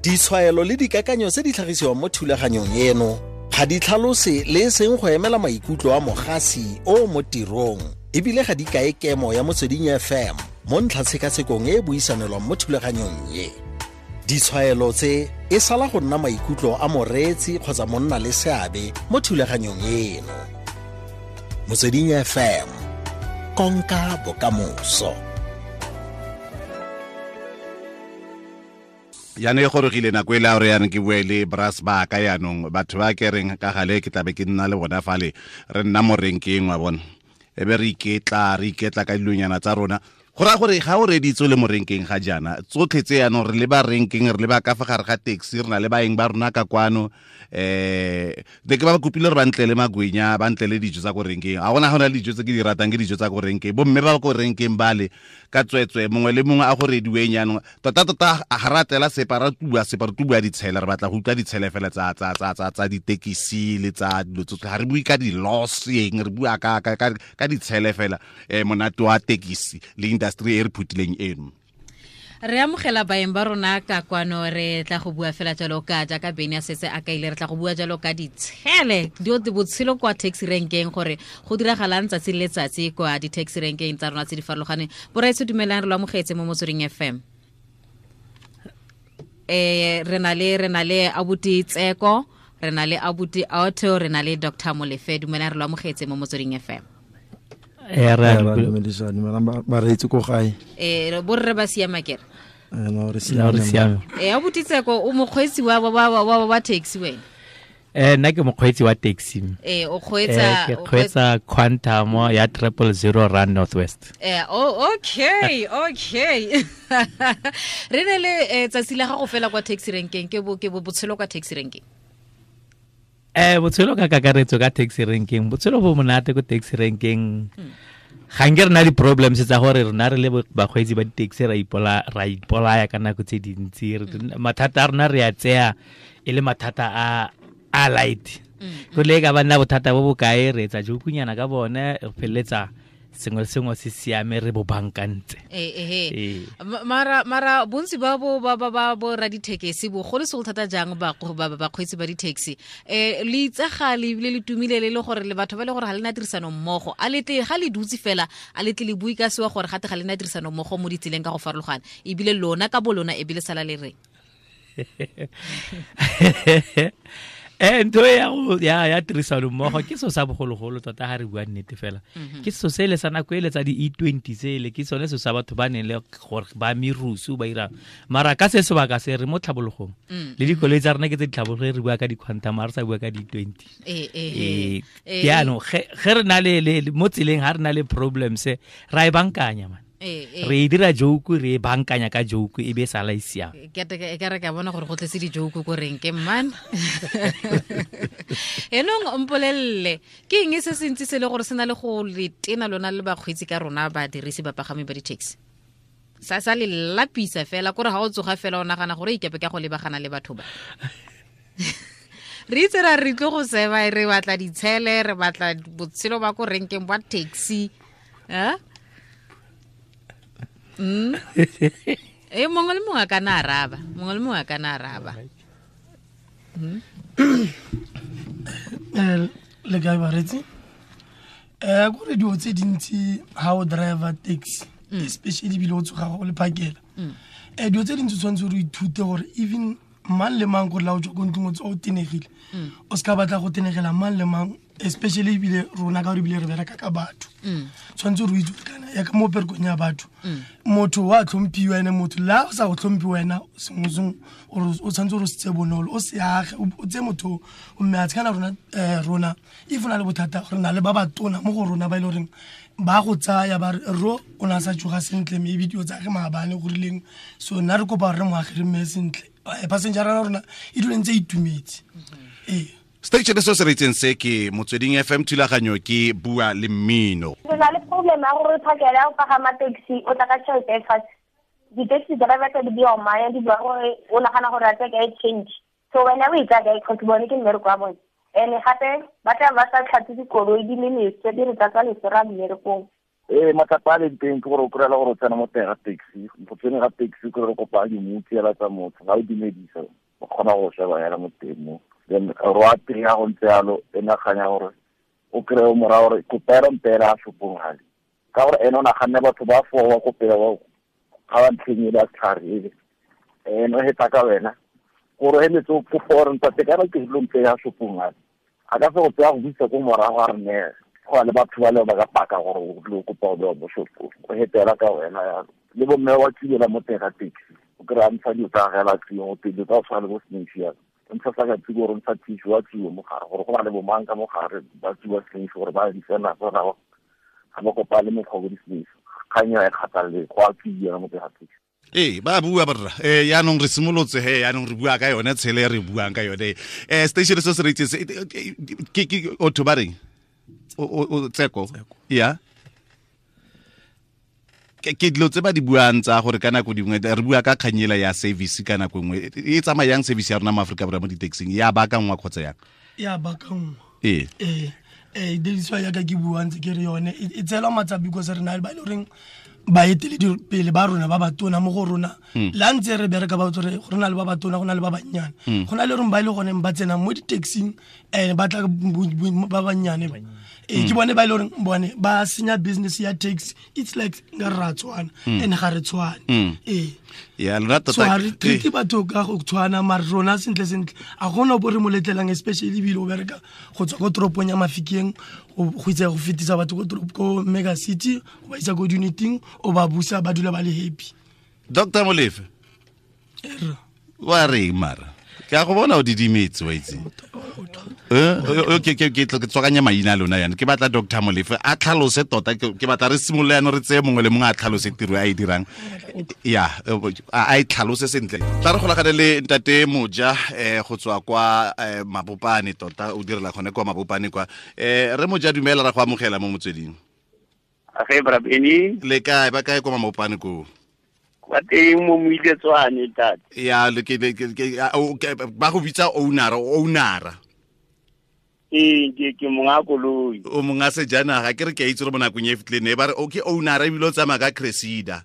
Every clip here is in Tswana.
Ditshwaelo le dikakanyo tse di tlhagisiwang mo thulaganyong eno ga di tlhalose le e seng go emela maikutlo a mogasi o mo tirong, ebile ga di kae kemo ya Motsweding FM mo ntlhatshekatshekong e e buisanelwang mo thulaganyong ye. Ditshwaelo tse e sala go nna maikutlo a moreetsi kgotsa monna le seabe mo thulaganyong eno. Motsweding FM, konka bokamoso. Jaanong e gorogile nako e le a gore yanong ke bue le bras ba ka yanong, batho ba ke reng ka gale ke tlabe ke nna le bona fale, re nna mo renkeng wa bona, e be re iketla, re iketla ka dilonyana tsa rona. Go raya gore ga o reditse o le mo renkeng ga jaana, tsotlhe tse yanong re leba renkeng, re leba ka fa gare ga taxi, re na le baeng ba rona ka kwano. Ne ke ba kopile gore ba ntlele magwenya, ba ntlele dijo tsa ko renkeng. Ga gona, ga gona dijo tse ke di ratang, ke dijo tsa ko renkeng. Bomme ba ko renkeng bale ka tswetswe, mongwe le mongwe a go rediweng jaanong. Tota-tota ga ra tlela sepa, ra tubua sepa, re tubua ditshele, re batla go utlwa ditshele fela tsa ditekisi le tsa dilo tsotlhe. Ga re bue ka di-loss eng, re bua ka ditshele fela. Monate wa tekisi le industry e re phutileng eno. Re amogela baeng ba rona ka kwano, re tla go bua fela jalo ka jaaka Beny a setse a kaile, re tla go bua jalo ka ditshele, dio botshelo kwa taxi renkeng, gore go diragalang tsatsi le letsatsi kwa di-taxi renkeng tsa rona tse di farologaneng. Boraetsho, dumelang, re lo amogetse mo Motsweding FM. Re na le abuti Tseko, re na le abuti Auto, re na le Dr Molefe. Dumelang, re lo amogetse mo Motsweding FM. Re a dumedisa, dumelang bareetsi ko gae. Borre ba siama kere? No, re re siame. Siame. Abuti Tseko, o mokgweetsi wa taxi wena? Nna ke mokgweetsi wa taxi. O kgweetsa? Ke kgweetsa Quantum ya 000 Run North West. Oh, okay. Re ne le tsatsi la gago fela kwa taxi renkeng, ke bo botshelo kwa taxi renkeng. Botshelo ka kakaretso ka taxi renkeng, botshelo bo monate ko taxi renkeng. Ga nke re na di-problems tsa gore rona re le bakgweetsi ba di-taxi ra ipolaya ka nako tse dintsi. Mathata a rona re a tseya e le mathata a light, go le ka ba nna bothata bo bokae, re etsa jokunyana ka bone, re feleletsa sengwe le sengwe se siame, re bo bankantse. Ee. Mara bontsi ba bo ba ba ba bo ra dithekesi, bogolo segolo thata jang ba bakgweetsi ba di-taxi, le itsagale ebile le tumile le le gore le batho ba le gore ga le na tirisano mmogo. A letle ga le dutse fela, a letle le bue ka sewa gore gate ga le na tirisano mmogo mo ditseleng ka go farologana, ebile lona ka bo lona ebile sala le reng? Ntho e ya go ya tirisano mmogo ke so sa bogologolo tota, ga re bua nnete fela. Ke so se le sa nako ele tsa di-E20 tsele, ke sone se sa batho ba neng le gore ba merusu ba irang. Mara ka se sebaka se re mo tlhabologong, le dikoloi tsa rona ke tse di tlhabologe, re bua ka di-Quantum, ga re sa bua ka di-20. Jaanong ge re na le mo tseleng, ga re na le problems, ra e bankanya man. Re e dira joke, re e bankanya ka joke, e be e sala e siame. Ke re ka bona gore go tletse di-joke ko reng ke man. Enong mpolelele, ke eng se se ntsi se le gore se na le go le tena lona le bakgweetsi ka rona badirisi, bapagami ba di-taxi, sa le lapisa fela, kore ga o tsoga fela o nagana gore ikepe ka go lebagana le batho ba re itse ra re tlo go seba, re batla ditshele, re batla botshelo ba ko renkeng ba taxi, eh? Mongwe le mongwe a ka na araba, mongwe le mongwe a ka na araba. Le kae baretsi? Kore dilo tse dintsi ha o driver taxi, especially ebile o tsoga go le phakela, dilo tse dintsi o tshwanetse gore o ithute gore even mang le mang, gore la o tswa ko ntlong o tswa o tenegile, o se ka batla go tenegela mang le mang, especially ebile rona ka gore ebile re bereka ka batho. Tshwanetse gore o itse gore kana ya ka mo perekong ya batho, motho wa tlhomphiwa, ene motho la o sa go tlhomphi wena, sengwe sengwe ore o tshwanetse gore o se tse bonolo, o se age, o tseye motho o mme a tshekana rona. Rona if o na le bothata, re na le ba batona mo go rona ba e le goreng ba go tsaya ba re ro o ne a sa tsoga sentle, maybe dilo tsa ge maabane go rileng, so nna re kopa gore re moage, re mme sentle. Passenger ya rona e dule ntse e itumetse, ee. Station se se reitseng se ke Motsweding FM, thulaganyo ke Bua le Mmino. Re na le problem ya gore phakela ya go pagama taxi, o tla ka tšhelete e fatshe, di-taxi driver tsa di bua maya, di bua gore o nagana gore a tsaya kae change, so wena o e tsaya kae? Cause bone ke mmereko wa bone, and gape ba tla ba sa tlhatswe dikoloi, di le leswe, di re tlatsa leswe ra mmerekong. Ee, matsapa a leng teng ke gore o kry-ela gore o tsena mo teng ga taxi, go tsene ga taxi o kry-e kopa dimutsi hela tsa motho, ga o dumedisa o kgona go sheba hela mo teng mo. Then ro a teng ya go ntse yalo, e naganya gore o kry-e o moraya gore kopela mpela a shopong gale, ka gore ene o naganne batho ba four ba ko pele ba ga ba ntlheng ele ya setlhare ele, ene o heta ka wena gore o heletse o kopa gore ntate kana ke dilo mpe ya shopong gale, a ka se go tseya go buisa ko morago a re ne go na le batho ba le ba ka paka gore o tlile go kopa go bewa mo shopong, o hetela ka wena yalo. Le bomme wa tsibela mo teng ga taxi, o kry-a ntsha dilo tsa gagwe la tsiwa, go teng dilo tsa go tshwana le bo snatch yalo, o ntsha sa ka tsiwa gore o ntsha tissue wa tsiwa mo gare, gore go na le bomang ka mo gare ba tsiwa snatch gore ba di tsena tsona ga ba kopane mekgwa bo di-snatch, kgang eo ga e kgathalele, go a tsiwa mo teng ga taxi. Ee, ba bua borra. Yaanong re simolotse he, yaanong re bua ka yone tshele e re buang ka yone. Station se se re itse se ke otho ba reng? O Tseko. Ya. Ke dilo tse ba di buang tsa gore ka nako dingwe re bua ka kganyela ya service ka nako nngwe. E tsamaya yang service ya rona mo Afrika Borwa mo di-taxing? Ya baakangwa kgotsa yang? Ya baakangwa. Ee. Ee, diriswa yaka ke buang ntse ke re yone e tseelwa matsapa because re na le ba e le goreng baeteledipele ba rona ba batona mo go rona. La ntse re bereka ba tsore go na le ba batona, go na le ba bannyane. Go na le reng ba ile gone ba tsena mo di-taxing, ba tla ba bannyane ba. Ke bone ba ile goreng bone ba senya business ya taxi. It's like nka re ra tshwana, and ga re tshwane. Ee. Ya, lona tota So ha re ke- treat batho ka go tshwana, mare rona sentle sentle a gona bo re mo letlelang, especially ebile o bereka go tswa ko toropong ya Mafikeng go itse go fetisa batho ko toropo, ko mega city, go ba isa ko di-uniting, o ba busa ba dula ba le happy. Doctor Molefe, Erra. wa reng mara? Ke a go bona o didimetse, wa itse. Ke tswakanya maina a lona yana. Ke batla Doctor Molefe a tlhalose tota, ke batla re simolole yana re tseye mongwe le mongwe a tlhalose tiro a e dirang. Ya, a e tlhalose sentle. Tla re golagane le ntate Moja, go tswa kwa Mabopane tota, o direla gone kwa Mabopane kwa. Re Moja, dumela, ra go amogela mo motsweding. Age bra Benny. Le kae, ba kae kwa Mabopane koo? Kwa teng mo Moiletswane, ntate. Ya, le ke, le ke, ke, a, o, ke, ba go bitsa owner, owner. Ee, ke monga koloi. O monga sejanaga, ke re ke a itse gore mo nakong e fetileng ne ba re, o ke owner ebile o tsamaya ka Cressida.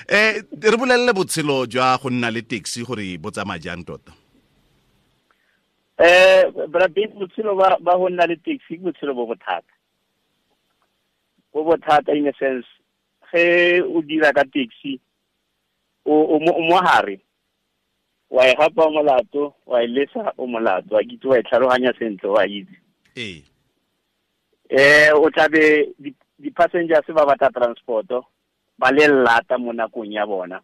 Re bolelele botshelo jwa go nna le taxi gore bo tsamaya jang tota? Bra Benny, botshelo ba go nna le taxi ke botshelo bo bothata. Bo bothata in a sense, ge o dira ka taxi, o mo hare, wa e gapa molato, wa e lesa o molato, wa kitse wa e tlhaloganya sentle, wa itse. Ee. O tla be di-passengers ba batla transport-o, ba le lata mo nakong ya bona,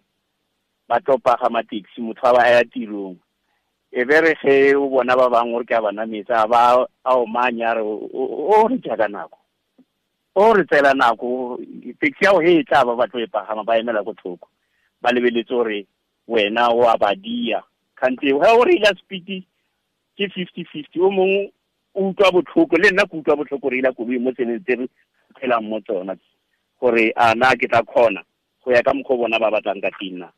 ba tlo pagama taxi, motho a ba ya tirong. E be re ge o bona ba bangwe gore ke a ba nametsa, a ba a omanya, a re, o re ja ka nako. O re tseela nako, taxi ya go he e tla ba ba tlo e pagama, ba emela ko thoko. Ba lebeletse gore wena o a ba dia. Kgante ge o reila speed ke 50-50, o mongwe o utlwa botlhoko, le nna ke utlwa botlhoko go reila koloi mo tseleng tse re phelang mo tsona, gore a na ke tla kgona go ya ka mokgwa o bona ba batlang ka teng na.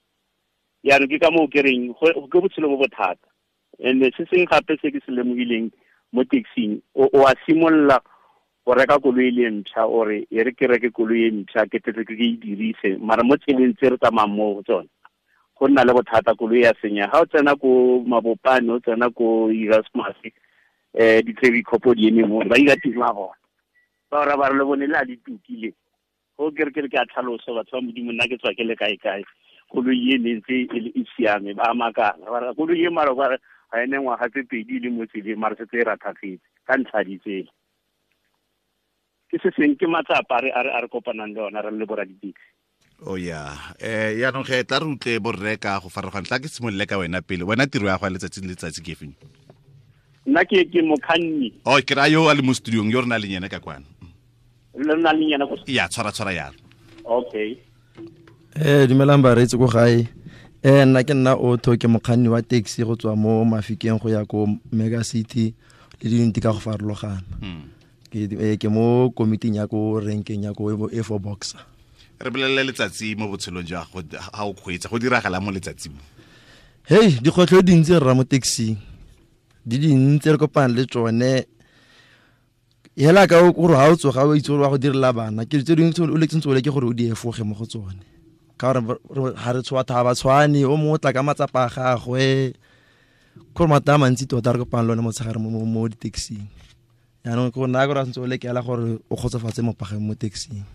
Jaanong ke ka moo ke reng, ke botshelo bo bothata. And se sengwe gape se ke se lemogileng mo taxing, o a simolola go reka koloi le ntšha, o re e re ke reke koloi e ntšha, ke tle ke e dirise, mara mo tseleng tse re tsamayang mo go tsone go nna le bothata, koloi ya senya. Ga o tsena ko Mabopane, o tsena ko Erasmus, di-traffic cop di eme mo, ba ira tiro ya bona. Ba ora ba re le bone le a di tukile. Go ke re ke re ke a tlhalosa, batho ba Modimo, nna ke tswa ke le kae kae, koloi e ne ntse e le e siame, ba makala. Ba re koloi e mara ba re ga e ne ngwaga tse pedi e le mo tseleng, mara setse e rathafetse ka ntlha ya ditsela. Ke se seng ke matsapa a re kopanang le ona re le borra di-taxi. Oh yeah. Yaanong ge tla re utlwe borre ka go farologana, tla ke simolole ka wena pele. Wena tiro ya go ya letsatsi le letsatsi ke efeng? Nna ke mokganni. Oh, ke raya yo a le mo studiong, yo re nang le yena ka kwano. Le nna le yena ko Ya, tshwara, tshwara yalo. Okay. Dumelang bareetsi ko gae. Nna ke nna Otto, ke mokganni wa taxi go tswa mo Mafikeng go ya ko Mega City le diyuniti ka go farologana. Ke mo komiting ya ko renkeng ya ko A four Boxer. Re bolelele letsatsi mo botshelong jwa gago, ha o kgweetsa, go diragala mo letsatsing mo? Hei, dikgwetlho di dintsi rra mo taxing. Di dintsi re kopana le tsone. Hela ka o gore ha o tsoga o itse gore wa go direla bana ke tse dingwe o letseng tsole ke gore o di efoge mo go tsone ka gore ha re tshwa tha ba tshwane o mongwe o tla ka matsapa a gagwe gore mata a mantsi tota re kopang le one motshegare mo di-taxing yaanong ke nna gore a santse o lekela gore o kgotsofatse mopageng mo taxing.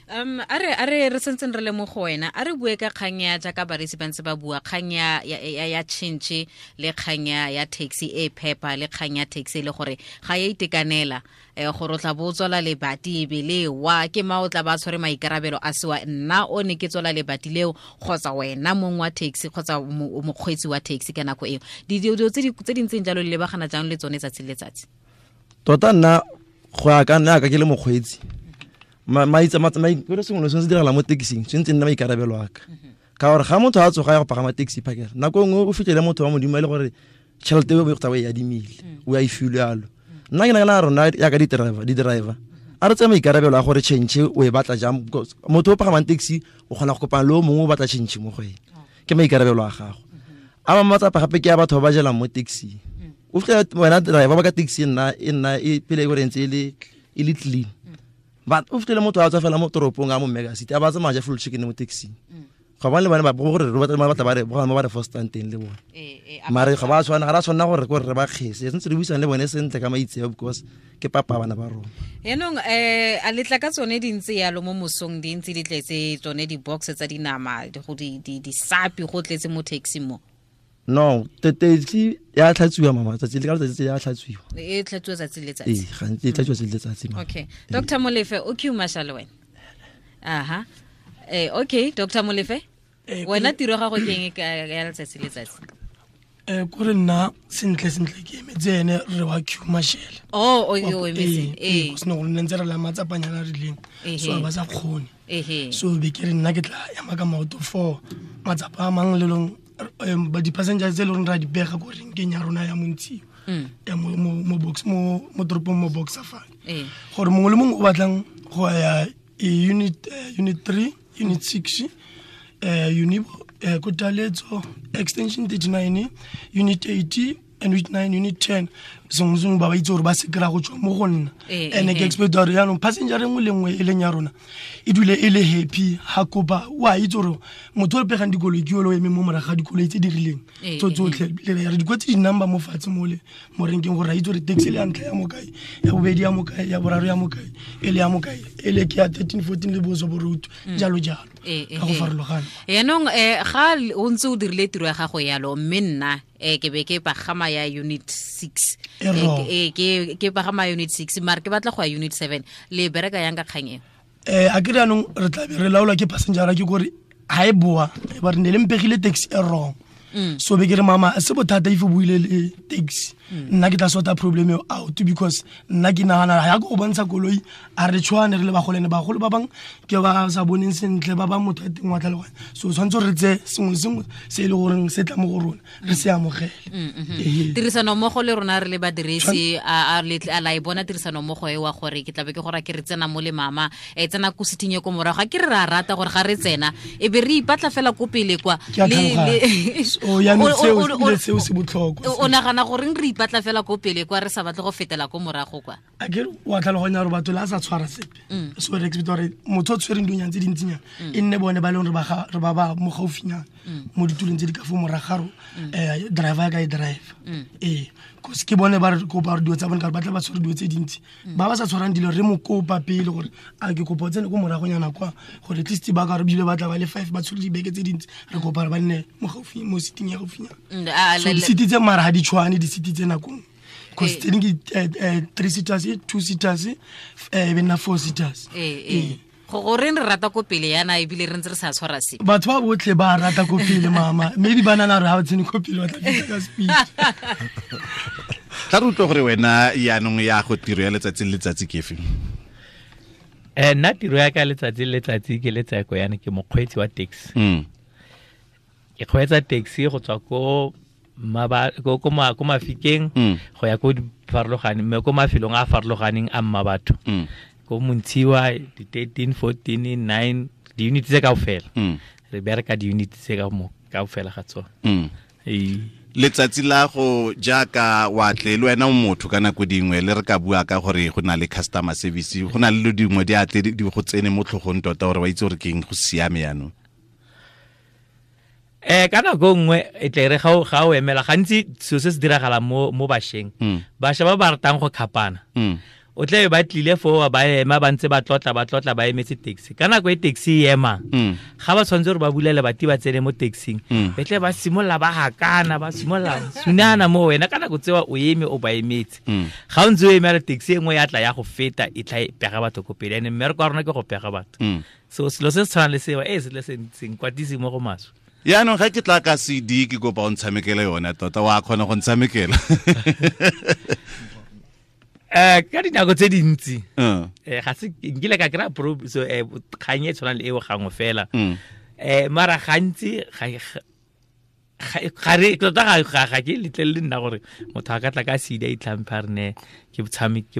A re re sentseng re le mo go wena, a re bue ka kgang ya jaaka baresi ba ntse ba bua kgang ya tšhentšhe le kgang ya taxi e phepa le kgang ya taxi e le gore ga ya itekanela, gore o tla bo o tswala lebati e be le wa ke ma o tla ba tshwere maikarabelo a sewa nna o ne ke tswala lebati leo kgotsa wena mong wa taxi kgotsa mokgweetsi wa taxi ka nako eo. Dilo tse di ntseng jalo le lebagana jang le tsone tsatsi le letsatsi? Tota nna go ya ka nna ka ke le mokgweetsi maitse sengwe le sengwe se diragala mo taxing tshwanetse nna maikarabelo a ka ka gore ga motho a tsoga ya go pagama taxi phakela nako nngwe o fitlhele motho wa modimo e le gore tšhelete e o e adimile o a e filwe yalo. Nna ke nagana rona yaka di-driver a re tseye maikarabelo a gore change o e batla jang. Motho o pagamang taxi o kgona go kopana le o mongwe o batla change mo go ene, ke maikarabelo a gago. A mangwe matsapa gape ke a batho ba ba jelang mo taxi. O fitlhela wena driver ba ka taxi e nna e pele e gore ntse e le clean, but o fitlhele motho a tswa fela mo toropong a mo mega city a ba tsamaya ja full chicken mo taxi. Ga ba le bana ba gore re batla ba re ba re fostang teng le bone, mare ga ba tshwana, ga ra tshwanna gore re ba kgese, sentse re buisang le bone sentle ka maitseo because ke papa bana ba rona. Yaanong a letla ka tsone di ntse yalo mo mosong, di ntse di tletse tsone di-box tsa dinama go di sapi go tletse mo taxi mo? No, taxi ya tlhatswiwa mama tsatsi le ka letsatsi ya tlhatswiwa. E tlhatswiwa tsatsi le letsatsi? Ee, gantsi e tlhatswiwa tsatsi le letsatsi mama. Okay, Dr Molefe o Q Marshal wena. Aha. Okay, Dr Molefe, wena tiro ya gago ke eng ya letsatsi le letsatsi? Kore nna sentle sentle ke emetse ene re wa Q Marshal. Oh, o emetse. Ee, go sena gore nne ntse re la matsapanyana a rileng, so ba sa kgone. So be ke re nna ke tla ema ka maoto for matsapa a mang le long ba di-passengers tse e le goreng ra di bega ko renkeng ya rona ya Montshiwa ya mo box mo toropong mo Boxer fane, gore mongwe le mongwe o batlang go ya unit unit 3, unit 6, Unibo, Kotaletso, extension 39, unit 80, unit 9, unit 10, sengwe sengwe ba ba itse gore ba se kry-a go tswa mo go nna. And ke expect gore jaanong passenger e nngwe le nngwe e leng ya rona e dule e le happy ga kopa. O a itse gore motho o re pegang dikoloi ke yole o emeng mo morago ga dikoloi tse di rileng tso tsotlhe, re di kwetse di-number mo fatshe mole mo renkeng gore ra itse gore taxi le ya ntlha ya mokae, ya bobedi ya mokae, ya boraro ya mokae, e le ya mokae, e le ke ya 13, 14 le boso boroutu, jalo jalo ka go farologana. Yaanong ga o ntse o dirile tiro ya gago yalo, mme nna ke be ke pagama ya unit 6, ke pagama unit 6 mare ke batla go ya unit 7, le bereka yang ka kgang eo? A ke re anong re tla be re laolwa ke passenger ke kore ha e boa ba re ne le mpegile taxi e wrong. So be ke re mama se bothata if o buile le taxi, nna ke tla sort problem eo out because nna ke nagana ya go bontsha koloi a re tshwane re le bagolene, bagolo ba bang ke ba sa boneng sentle, ba bang motho a teng wa tlhaloganya, so tshwanetse re tse sengwe le sengwe se e le goreng se tla mo go rona re se amogele. Tirisano mmogo le rona re le badirisi, a la e bona tirisano mmogo e wa gore ke tlabe ke gore ke re tsena mo le mama e tsena ko sitting e ko morago, ga ke re ra rata gore ga re tsena e be re ipatla fela ko pele kwa. Seo se botlhokwa. O nagana goreng re ipatla fela ko pele kwa re sa batle go fetela ko morago kwa? A ke wa tlhaloganya gore batho le a sa tshwara sepe, so re expect gore motho o tshwereng dinyana tse dintsinyana e nne bone ba e leng re ba mo gaufinyana mo ditulong tse di ka fo moragaro driver ya ka e driver ee, cause ke bone ba re kopa gore dilo tsa bone ka gore ba tla ba tshwere dilo tse dintsi. Ba ba sa tshwarang dilo re mo kopa pele gore a ke kopa o tsene ko moragonyana kwa gore at least ba ka re bile ba tla ba le five ba tshwere dibeke tse dintsi, re kopa gore ba nne mo gaufi mo seating ya gaufinyana. So di-seat tse mara ga di tshwane di-seat tse nakong cause tse dingwe ke three seaters, two seaters, e be nna four seaters. Go goreng re rata ko pele yana ebile re ntse re sa tshwara se? Batho ba botlhe ba rata ko pele mama, maybe ba nana re ga o tsene ko pele ba tla fitlha ka speed. Tla re utlwe gore wena yaanong ya go tiro ya letsatsi le letsatsi ke efe? Nna tiro ya ka letsatsi le letsatsi ke letseko yana ke mokgweetsi wa taxi. Ke kgweetsa taxi go tswa ko ko Mafikeng go ya ko farologaneng mme ko mafelong a a farologaneng a mma batho ko Montshiwa, di-13, 14, 9, di-unit tse kaofela. Re bereka di-unit tse ka mo kaofela ga tsone. Letsatsi la go jaaka wa tle le wena o motho ka nako dingwe le re ka bua ka gore go na le customer service, go na le dilo dingwe di a tle di go tsene mo tlhogong tota gore wa itse gore ke eng go siame yaanong. Ka nako nngwe e tle re ga o emela gantsi selo se se diragalang mo bašweng. Bašwa ba ba ratang go khapana. O tle ba tlile foo ba ema ba ntse ba tlotla ba emetse taxi. Ka nako e taxi e emang, ga ba tshwanetse gore ba bulele bati ba tsene mo taxing, be tle ba simolola ba hakana, ba simolola sunana mo wena. Ka nako tsewa o eme o ba emetse. Ga o ntse o emela taxi e nngwe ya tla ya go feta, e tla e pega batho ko pele. And mmereko wa rona ke go pega batho. So selo se se tshwanang le seo, se tle se nkwatise mo go maswe. Yaanong ga ke tla ka CD ke kopa o ntshamekele yone tota, wa kgona go ntshamekela? Ka dinako tse dintsi, ga se nkile ka kry-a kgang e tshwanang le eo gangwe fela. Mara gantsi ga re tota ga ke letlelele nna gore motho a ka tla ka CD a itlhamphe a re ne ke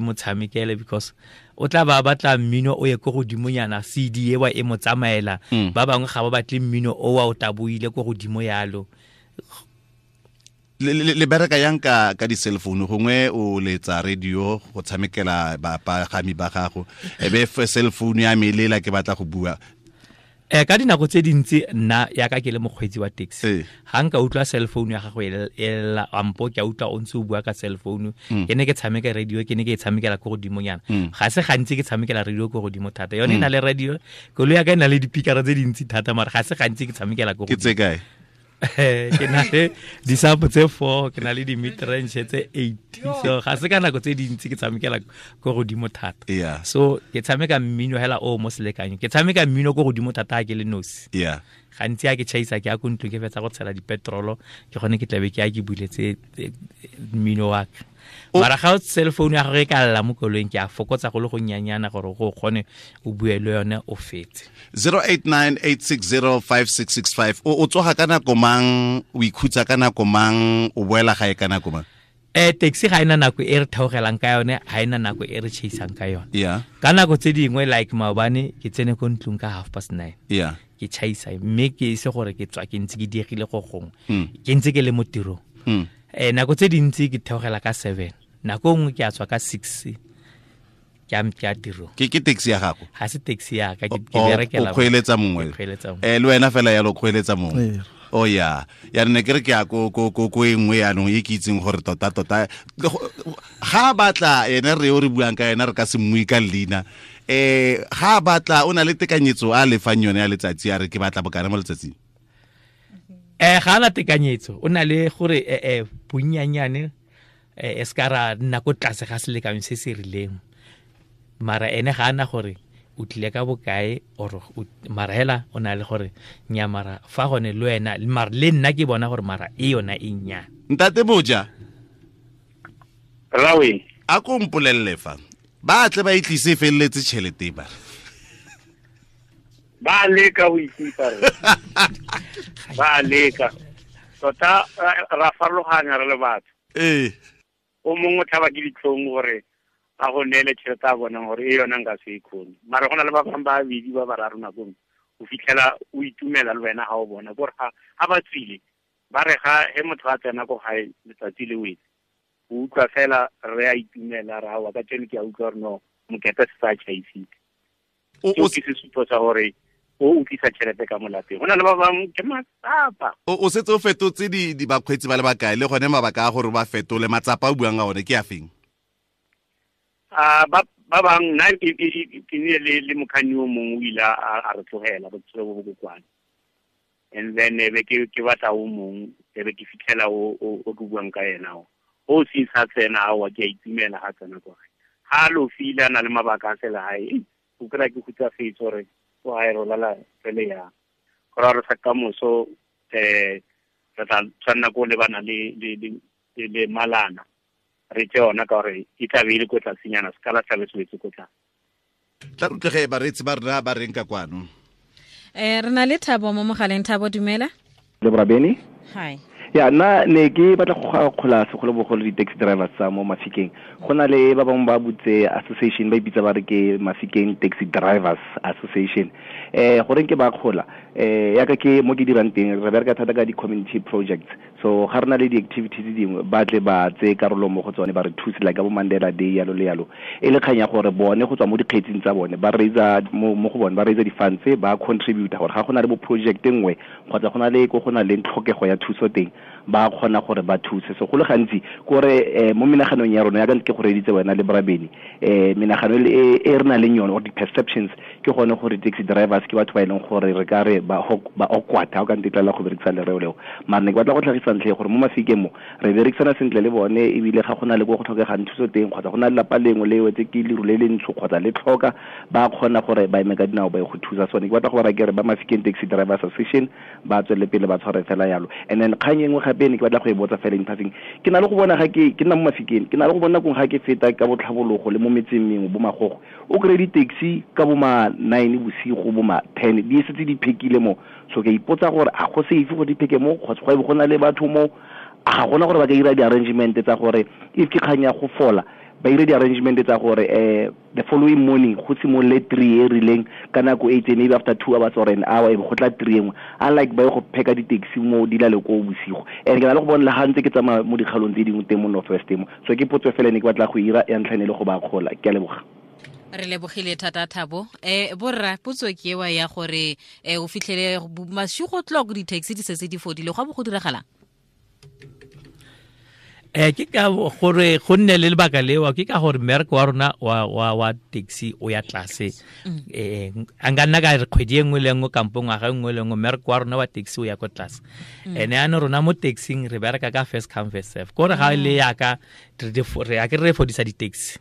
mo tshamekele, because o tla ba batla mmino o ye ko godimonyana, CD ewa e mo tsamaela. Ba bangwe ga ba batle mmino o wa o taboile ko godimo yalo. Le bereka yang ka di-cell phone, gongwe o letsa radio go tshamekela bapagami ba gago, e be cell phone ya me lela ke batla go bua. Ka dinako tse dintsi nna yaka ke le mokgweetsi wa taxi, ga nka utlwa cell phone ya gago e lela, ampo ke a utlwa o ntse o bua ka cell phone, ke ne ke tshameka radio, ke ne ke e tshamekela ko godimonyana. Ga se gantsi ke tshamekela radio ko godimo thata. Yone e na le radio, koloi ya ka e na le dipikara tse dintsi thata, mara ga se gantsi ke tshamekela ko Ke tse godimo. kae? Ke na le di-sub tse 4, ke na le di-mid-range tse 8. So ga se ka nako tse dintsi ke tshamekela ko godimo thata. So ke tshameka mmino hela o mo selekanyong. Ke tshameka mmino ko godimo thata ha ke le nosi. Gantsi ha ke tšhaisa ke ya ko ntlong ke fetsa go tshela dipetrolo, ke gone ke tlabe ke ya ke buletse mmino wa ka. Mara ga o cell phone ya gago e ka lla mo koloing, ke a fokotsa go le go nnyanyana gore go kgone o bue le yone o fetse. 0898605665. O tsoga ka nako mang, o ikhutsa ka nako mang, o boela gae ka nako mang? Taxi ga ena nako e re theogelang ka yone, ga ena nako e re chaisang ka yone. Ka nako tse dingwe like maobane ke tsene ko ntlong ka 9:30. Ke chaisa mme ke ise gore ke tswa ke ntse ke diegile go gongwe. Ke ntse ke le mo tirong. Nako tse dintsi ke theogela ka 7. Nako nngwe ke a tswa ka 6. Ke a tirong. Ke taxi ya gago? Ga se taxi ya ka, ke berekela O kgweeletsa mongwe. Ke kgweeletsa mongwe. Le wena fela yalo o kgweeletsa mongwe. O ya. Ya ne ke re ke ya ko e nngwe yaanong e ke itseng gore tota tota ga batla ene re o re buang ka ena re ka se mmui ka leina. Ga batla o na le tekanyetso a lefang yone ya letsatsi, a re ke batla bokana mo letsatsing. Ga ana tekanyetso, o na le gore bonnyanyane, e se ka ra nna ko tlase ga selekanyo se se rileng. Mara ene ga ana gore o tlile ka bokae or mara hela o na le gore nya mara fa gone le wena, mara le nna ke bona gore mara e yona e nnyane. Ntate Boja. Rawe. A ko mpolelle fa. Ba tle ba itlise felletse tšhelete ba. Ba leka ho itlisa re. Ba leka. Tota ra farologanya re le batho. O mongwe o tlhaba ke ditlhong gore a go neele tšhelete a bonang gore e yona nka se e kgone. Mara go na le ba bangwe ba babedi ba bararo nako nngwe, o fitlhela o itumela le wena ga o bona. Kore ga ba tswile, ba re ga he motho a tsena ko gae letsatsi le wetse, o utlwa fela re a itumela, re aowa, ka tseno ke a utlwa gore no, mokete se sa tšhaisitse. Seo ke sesupo sa gore o utlwisa tšhelete ka mo lapeng. Go na le ba bangwe ke matsapa. O setse o fetotse di bakgweetsi ba le bakae, le gone mabaka a gore ba fetole matsapa a o buang ka one ke a feng? Ba bangwe, nna ke nnile le mokganni o mongwe o ile a re tlogela botshelo bo bo kokwane. And then e be ke batla o mongwe, e be ke fitlhela o ke buang ka ena o. O se sa tsena aowa, ke a itumela ga tsena kwa gae. Ga a lofile a na le mabaka a selegae, o kry-a ke hutsafetse gore o gae re lala re le yang. Go raya gore sa kamoso, re tla tshwanela ko lebana le malana. Re tse yona ka gore e tla be e le ko tlasenyana, se ka la tlabe se wetse ko tlase. Tla re utlwe ge bareetsi ba rona ba reng ka kwano. Re na le Thabo mo mogaleng. Thabo, dumela. Le Brabeni. Hi. Ya nna ne ke batla go akgola segolobogolo di-taxi drivers tsa mo Mafikeng. Go na le ba bangwe ba butse association, ba ipitsa ba re ke Mafikeng Taxi Drivers Association. Goreng ke ba akgola, yaka ke mo ke dirang teng, re bereka thata ka di-community projects. So ga re na le di-activities dingwe, ba tle ba tseye karolo mo go tsone, ba re thuse like ka bo Mandela Day, yalo le yalo. E le kgang ya gore bone go tswa mo dikgetsing tsa bone, ba raisa mo go bone, ba raisa di-funds, ba contribute gore ga go na le bo project nngwe kgotsa go na le ko go na le tlhokego ya thuso teng, ba kgona gore ba thuse. So go le gantsi kore mo menaganong ya rona, yaka ke go reditse wena le Brabeni, menagano e re nang le yone or di-perceptions ke gone gore taxi drivers ke batho ba e leng gore re ka re ba awkward, ha o ka ntetlela go berekisa lereo leo. Mara ne ke batla go tlhagisa ntlha gore mo Mafikeng mo re berekisana sentle le bone, ebile ga go na le ko go tlhokegang thuso teng kgotsa go na le lapa lengwe le wetse ke leru le le ntsho kgotsa le tlhoka, ba kgona gore ba eme ka dinao ba ye go thusa. Sone ke batla go ba ra ke re ba Mafikeng Taxi Drivers Association ba tswelele pele ba tshware fela yalo. And then kgang e nngwe gape ne ke batla go e botsa fela in passing, ke na le go bona ga ke nna mo Mafikeng, ke na le go bona kong ga ke feta ka botlhabologo le mo metseng mengwe bo Magogo, o kry di-taxi ka bo ma 9 bosigo, bo ma 10 di setse di phekile mo. So ke ipotsa gore a go safe gore di pheke mo, kgotsa go na le batho mo, a ga gona gore ba ka dira di-arrangement tsa gore if ke kgang ya go fola, ba dire di-arrangement tsa gore the following morning go simolole 3 e rileng ka nako e itseng, maybe after 2 hours or an hour e be go tla 3 engwe, unlike ba ye go pheka di-taxi mo di lale ko bosigo. And ke na le go bona le ga ntse ke tsamaya mo dikgalong tse dingwe teng mo North West mo. So ke potso fela ne ke batla go ira ya ntlha ne le go ba akgola. Ke a leboga. Re lebogile thata Thabo. Borra, potso ke ewa ya gore o fitlhele masigo tloko di-taxi di setse di fodile, go a bo go diragalang? Ke ka gore go nne le lebaka leo, ke ka gore mmereko wa rona wa taxi o ya tlase. A nka nna ka re kgwedi e nngwe le nngwe kampo ngwaga e nngwe le nngwe mmereko wa rona wa taxi o ya ko tlase. Ene ano rona mo taxing re bereka ka first come first serve. Kore ga le yaka re a ke re fodisa di-taxi.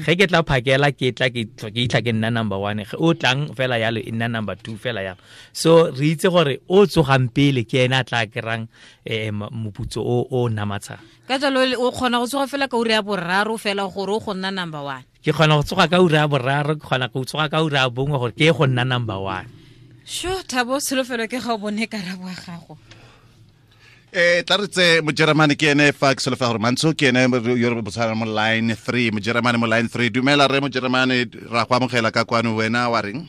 Ge ke tla phakela ke tla ke itlha ke nna number 1, ge o tlang fela yalo e nna number 2 fela yalo. So re itse gore o tsogang pele ke ena a tla kerang moputso o namatshang. Ka jalo o kgona go tsoga fela ka ura ya boraro fela gore o go nna number 1. Ke kgona go tsoga ka ura ya boraro, ke kgona go tsoga ka ura ya bongwe gore ke go nna number 1. Sho Thabo, tsholofelo ke ga o bone karabo ya gago. Tla re tse Mojeremane ke ene fa ke solofela gore Mantsho ke ene yo re botshana mo line 3, Mojeremane mo line 3. Dumela re Mojeremane, ra go amogela ka kwano, wena wa reng?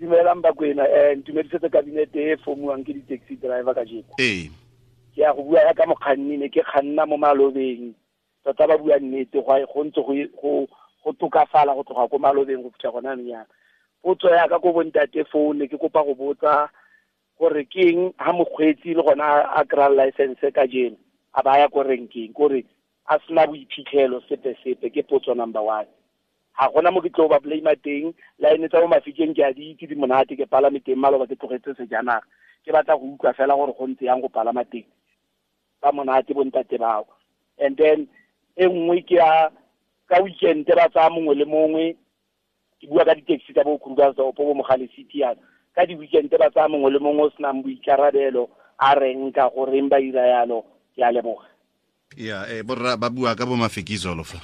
Dumelang Bakwena, ntumedisetse kabinete e fomuwang ke di-taxi driver kajeko. Ke ya go bua ya ka mokganni, ne ke kganna mo malobeng, tota ba bua nnete, go ntse go tokafala go tloga ko malobeng go fitlha gona anong yana. Potso ya ka ko bontate foo, ne ke kopa go botsa gore ke eng ha mokgweetsi le gona a kry-a license kajeno a ba ya ko renkeng, kore a sena boiphitlhelo sepe sepe. Ke potso number 1. Ga gona mo ke tlo ba blame teng, line tsa mo Mafikeng ke a di itse di monate, ke palame teng maloba ke tlogetse sejanaga, ke batla go utlwa fela gore go ntse yang go palama teng, ba monate bontate bao. And then e nngwe ke ya ka weekend ba tsaya mongwe le mongwe, ke bua ka di-taxi tsa bo Krugersdorp bo Mogale City yana, ka di-weekend ba tsaya mongwe le mongwe o senang boikarabelo a reng ka goreng ba ira yalo. Ke a leboga. Ya, borra ba bua ka bo Mafikizolo fa.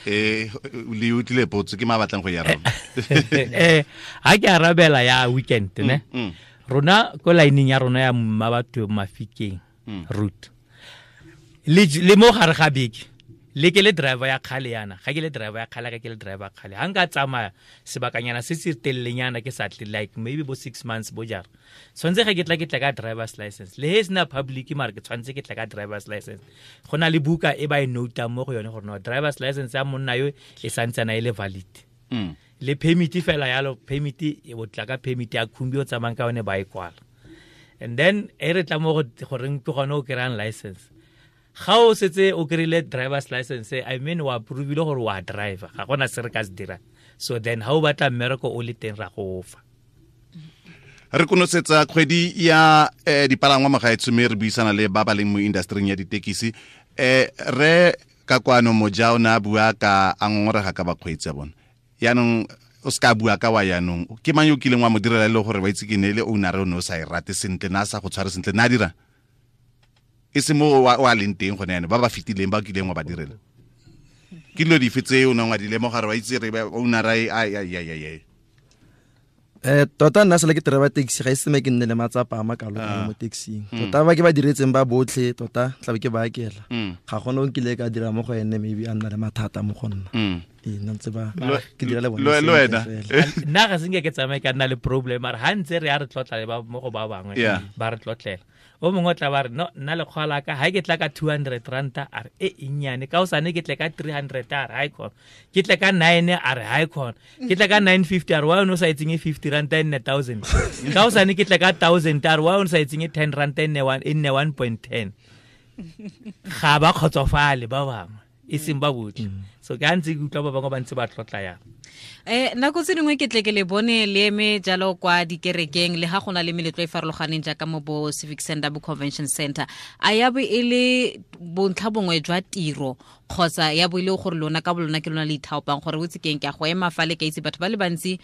Le utlwile potso ke ma batlang go e araba. Ha ke arabela ya weekend ne. Rona ko lineng ya rona ya Mmabatho Mafikeng route. Le mo gare ga beke, le ke le driver ya kgale yana, ga ke le driver ya kgale, ga ke le driver ya kgale. Ha nka tsamaya sebakanyana se se telelenyana ke sa tle, like maybe bo 6 months bo jara, tshwanetse ge ke tla ka driver's license. Le he sena public mara ke tshwanetse ke tla ka driver's license. Go na le buka e ba e notang mo go yone gore no driver's license ya monna yo e santsana e le valid. Le permit fela yalo, permit e o tla ka permit ya khumbi o tsamayang ka yone ba e kwala. And then e re tla mo go goreng ke gone o kry-ang license. Ga o setse o kry-ile driver's license, I mean wa approve-ile gore wa driver, ga gona se re ka se dirang. So then ha o batla mmereko o le teng ra go fa. Re konosetsa kgwedi ya dipalangwa magaetsho, mme re buisana le ba ba leng mo industry ya ditekisi. Re ka kwano Moja o ne a bua ka a ngongorega ka bakgweetsi ya bona. Yaanong o se ka bua ka wa yaanong, ke mang yo o kileng wa mo direla e le gore wa itse ke ne le owner o ne o sa e rate sentle, na a sa go tshware sentle, na a dira e se mo wa leng teng gone yaanong, ba ba fetileng ba kileng wa ba direla? Ke dilo dife tse o neng wa di lemoga gore wa itse re owner a. Tota nna sele ke driver taxi ga e seme ke nne le matsapa a makalo mo taxing. Tota ba ke ba diretseng ba botlhe tota tla be ke ba akela. Ga gona o nkile ka dira mo go ene maybe a nna le mathata mo go nna. Nna ntse ba ke dira le bone. Le wena. Nna ga se nke ke tsamaye ka nna le problem mara ha ntse re a re tlotla le ba mo go ba bangwe ba re tlotlela. O mongwe o tla ba re no nna lekgwa la ka ha ke tla ka 200 ranta a re e nnyane ka osane ke tle ka 300 a re ha e khona ke tle ka 9 a re ha e khona ke tle ka 950 a re wa o sa etseng 50 ranta e nne 1000 ka osane ke tle ka 1000 a re wa o sa etseng 10 ranta e nne 1.10 ga ba kgotsofale ba bangwe e seng ba botlhe. So ke a ntse ke utlwa ba bangwe ba ntse ba tlotla yang. Nako tse dingwe ke tle ke le bone le eme jalo kwa dikerekeng le ga gona le meletlo e farologaneng jaaka mo bo Civic Center bo Convention Center, a ya bo e le bontlha bongwe jwa tiro kgotsa ya bo e le gore lona ka bolona ke lona le ithaopang gore o itse keng ke a go ema fa le ka itse batho ba le bantsi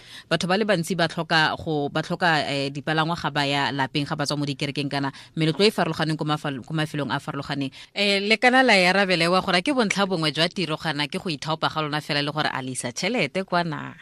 ba tlhoka go ba tlhoka dipalangwa ga ba ya lapeng ga ba tswa mo dikerekeng kana meletlo e farologaneng ko mafelong a farologaneng. Le kana la ya rabelewa gore ke bontlha bongwe jwa tiro gana ke go ithaopa ga lona fela le gore a lisa tšhelete kwa na?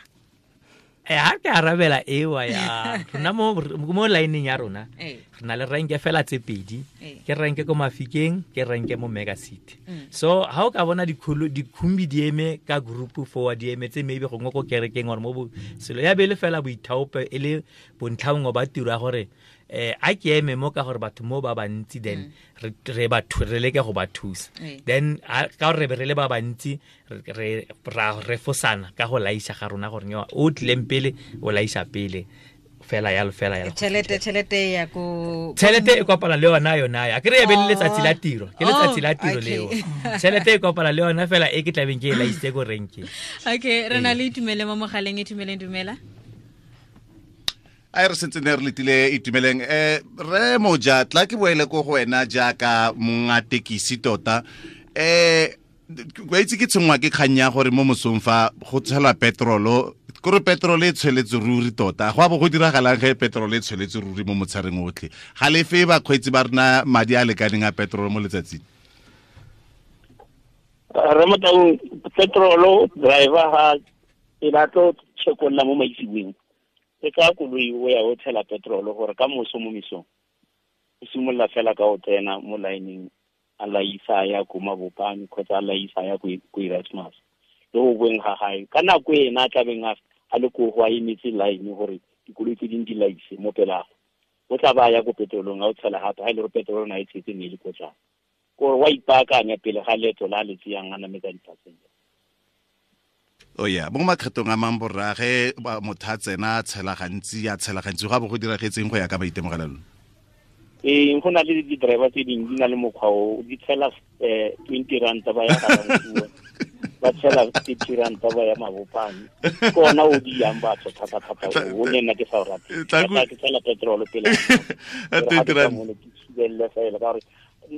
Ha ke arabela ewa ya rona mo lineng ya rona re na le renke fela tse pedi, ke renke ko Mafikeng, ke renke mo Mega City. So ha o ka bona dikhumbi di eme ka group forward di eme tse maybe gongwe ko kerekeng or mo selo ya bele fela boithaopo e le bontlha ba tiro ya gore a ke eme mo ka gore batho mo ba bantsi then re ba re leke go ba thusa then ka gore re le ba bantsi re refosana ka go laisa ga rona gore o tlileng pele o laisa pele fela yalo fela yalo. Tšhelete ya ko tšhelete e kopana le yona yona ya ke re be le letsatsi la tiro ke letsatsi la tiro leo tšhelete e kopana le yona fela e ke tlabeng ke e laisitse ko renkeng. Okay, re na le Itumeleng mo mogaleng. Itumeleng, dumela. A re sentse ne re letile Itumeleng. Re moja tla ke boele ko go wena jaaka monga tekisi tota. Wa itse ke tshwenngwa ke kgang ya gore mo mosong fa go tshelwa petrolo kore petrol e tshweletse ruri tota go a bo go diragalang ge petrol e tshweletse ruri mo motshareng otlhe ga lefe bakgweetsi ba rena madi a lekaneng a petrol mo letsatsing? Re motaung petrolo driver ha e batlo chekolla mo maitsibeng e ka koloi o ya o tshela petrol gore ka moso mo misong o simolola fela ka o tsena mo lineng a laisa ya ko Mabopane kgotsa a laisa ya ko Erasmus le go boeng ga gae ka nako ena a tlabeng a le ko go a emetse line gore dikoloi tse dingwe di laise mo pelago o tla ba ya ko petrolong a o tshela gape ga e le gore petrol na e tshetse ne e le ko tlase kore wa ipaakanya pele ga leeto la le tseyang a nametsa di-passenger. O ya mo makgethong a mang borrage motho a tsena a tshela gantsi go a bo go diragetseng go ya ka maitemogelo? Go na le di-driver tse dingwe di na le mokgwa o di tshela 20 ranta ba ya Ga-Rankuwa ba tshela 30 ranta ba ya Mabopane ke ona o di yang batho thata-thata o le nna ke sa o rate ke tshela petrol pele ke thibelele fela ka gore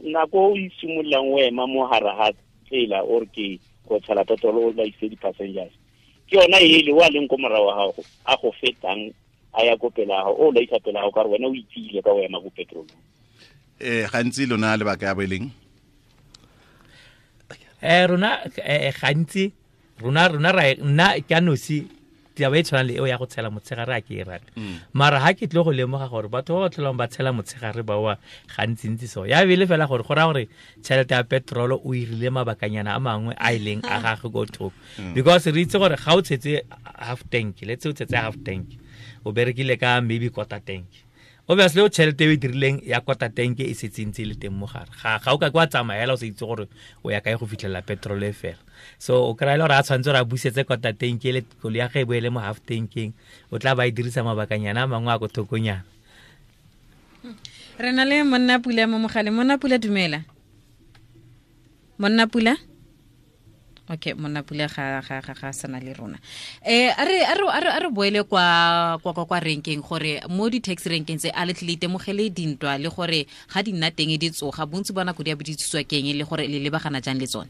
nako o isimololang o ema mo gare ga tsela or ke go tshela petrol o laise di-passengers ke yona ele o a leng ko morago wa gago a go fetang a ya ko pela gago o laisa pela gago ka gore wena o itsile ka o ema ko petrolong. Gantsi lona lebaka ya bo e leng? Rona gantsi rona ra nna ke a nosi taba e tshwanang le eo ya go tshela motshegare a ke e rate. Mara ha ke tle go lemoga gore batho ba ba tlholang ba tshela motshegare ba wa gantsintsi so ya bele fela gore go raya gore tšhelete ya petrol o irile mabakanyana a mangwe a e leng a gagwe ko thoko because re itse gore ga o tshetse half tank, let's say o tshetse half tank, o berekile ka maybe quarter tank, obviously o tšhelete e o e dirileng ya quarter tank e setse ntse e le teng mo gare ga o ka kwa tsamaela o sa itse gore o ya kae go fitlhelela petrol e fela. So o kry-a le gore a tshwanetse gore a busetse quarter tank ele koloi ya ge e boele mo half tankeng o tla ba e dirisa mabakanyana a mangwe a ko thokonyana. Re na le monna Pula mo mogaleng. Monna Pula, dumela. Monna Pula? Okay, monna Pula ga sana le rona. A re boele kwa renkeng gore mo di-taxi renkeng tse a le tle le itemogele dintwa le gore ga di nna teng di tsoga bontsi ba nako di a bo di tswa keng le gore le lebagana jang le tsone?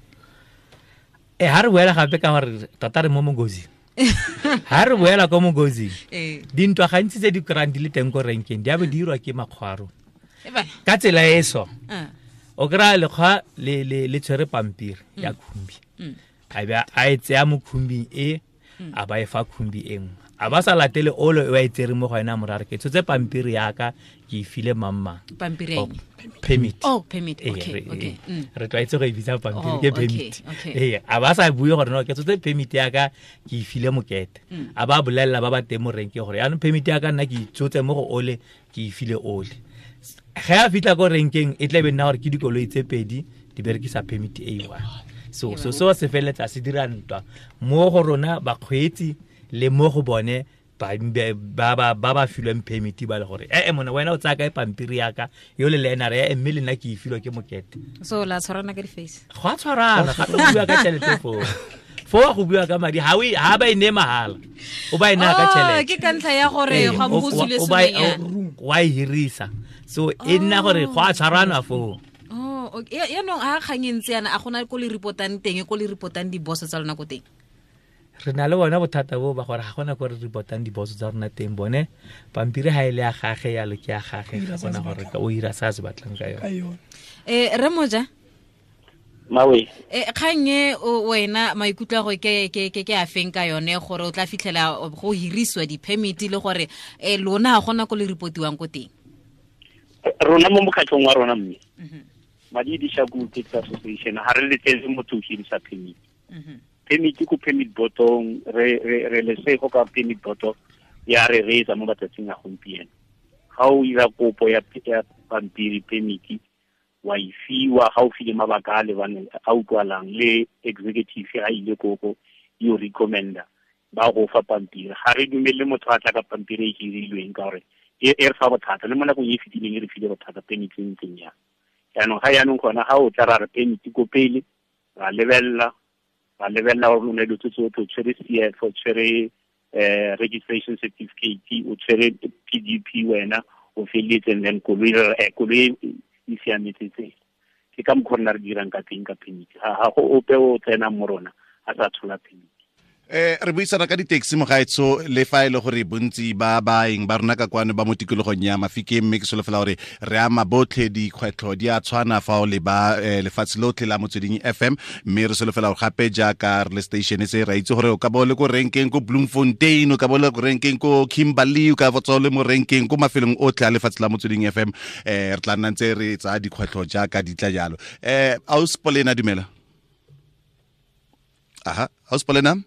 Ha re boela gape ka gore tota re mo mongozing. Ha re boela ko mongozing dintwa gantsi tse di kry-ang di le teng ko renkeng di a bo di irwa ke makgwa a rona ka tsela e so. O kry-a lekgwa le tshwere pampiri ya khumbi a be a e tseya mo khumbing e a ba e fa khumbi e nngwe A ba sa latele olo e wa e tsere mo go ena morare ke tshotse pampiri yaka ke e file mamma. Pampiri oh, permit. Oh, permit. Okay, okay. Re tlwaetse go e bitsa pampiri ke permit. Ee, a ba sa bue gore no ke tshotse permit yaka ke e file mokete. A ba bolelela ba ba teng mo renkeng gore yaanong permit yaka nna ke itsotse mo go ole ke e file ole. Ge a fitlha ko renkeng e tla be nna gore ke dikoloi tse pedi di berekisa permit e one. So so so se feleletsa se dira ntwa mo go rona bakgweetsi le mo go bone ba ba filweng permit ba le gore ee mona wena o tsaya kae pampiri yaka yo le le ena re e mme le nna ke e filwe ke mokete. So la tshwarana ka di-face. Go a tshwarana gape go bua ka tšhelete foo. Foo go bua ka madi ha ha ba e ne mahala. O ba e naya ka tšhelete. Ke ka ntlha ya gore ga bo go tswile sengwenyana. Wa e hirisa. So e nna gore go a tshwarana foo. Oh, okay. Yaanong ha kgang e ntse yana a gona ko le reportang teng ko le reportang di-boss tsa lona ko teng? Re na le bona bothata bo ba gore ga gona ko re reportang diboso tsa rona teng bone pampiri ha e le ya gage yalo ke ya gage ga gona gore o ira sa se batlang ka yone. Re moja Mawe. Kgang e wena maikutlo a go ke ke ke ke a feng ka yone gore o tla fitlhela go hirisiwa di-permit le gore lona ga gona ko le reportiwang ko teng? Rona mo mokgatlhong wa rona mme Madi di Shaku Taxi Association ha re letlele motho ho hirisa permit. Permit ko permit botong re re re lesego ka permit boto ya re reetsa mo matsatsing a gompieno. Ga o ira kopo ya pampiri permit wa e fiwa ga o file mabaka a lebaneng a utlwalang le executive ga ile koko yo recommenda ba go fa pampiri. Ga re dumele motho a tla ka pampiri e hirilweng ka gore e re fa bothata le mo nakong e e fetileng e re file bothata permit e ntseng jang. Jaanong ga jaanong gona ga o tla ra re permit ko pele ra lebelela gore o ne dilo tse tsotlhe o tshwere CF o tshwere registration certificate o tshwere PDP wena o feleletse and then koloi e siametse tsela. Ke ka mokgwa rona re dirang ka teng ka permit. Ga go ope o tsenang mo rona a sa tshola permit. Re buisana ka di-taxi mogaetsho le fa e le gore bontsi ba baeng ba rona ka kwano ba mo tikologong ya Mafikeng mme ke solofela gore re ama botlhe dikgwetlho di a tshwana fa o le ba lefatshe lotlhe la Motsweding FM mme re solofela gore gape jaaka re le station se ra itse gore o ka bo le ko renkeng ko Bloemfontein o ka bo le ko renkeng ko Kimberley o ka bo tswa le mo renkeng ko mafelong otlhe a lefatshe la Motsweding FM re tla nna ntse re tsaya dikgwetlho jaaka di tla jalo. Aus Polena dumela. Aha, Aus Polena.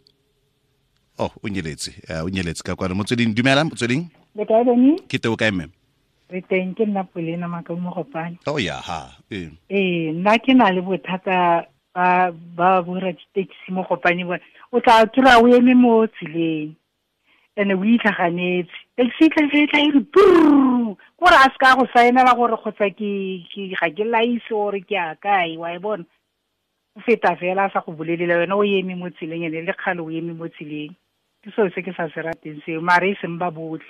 Oh, o nyeletse ka kwano. Motsweding dumela Motsweding. Le kae Beni? Ke teng o kae mme? Re teng ke nna Polena Makau Mogopane. Oh ya ha. Ee, nna ke na le bothata ba borra di-taxi mo Gopane bona. O tla kry-a o eme mo tseleng ene o itlhaganetse. Taxi e tla e re brrr kore a se ka go saenela gore kgotsa ke ga ke laise gore ke a kae wa e bona. O feta fela a sa go bolelela wena o eme mo tseleng ene le kgale o eme mo tseleng. Ke selo se ke sa se rateng seo mare e seng ba botlhe.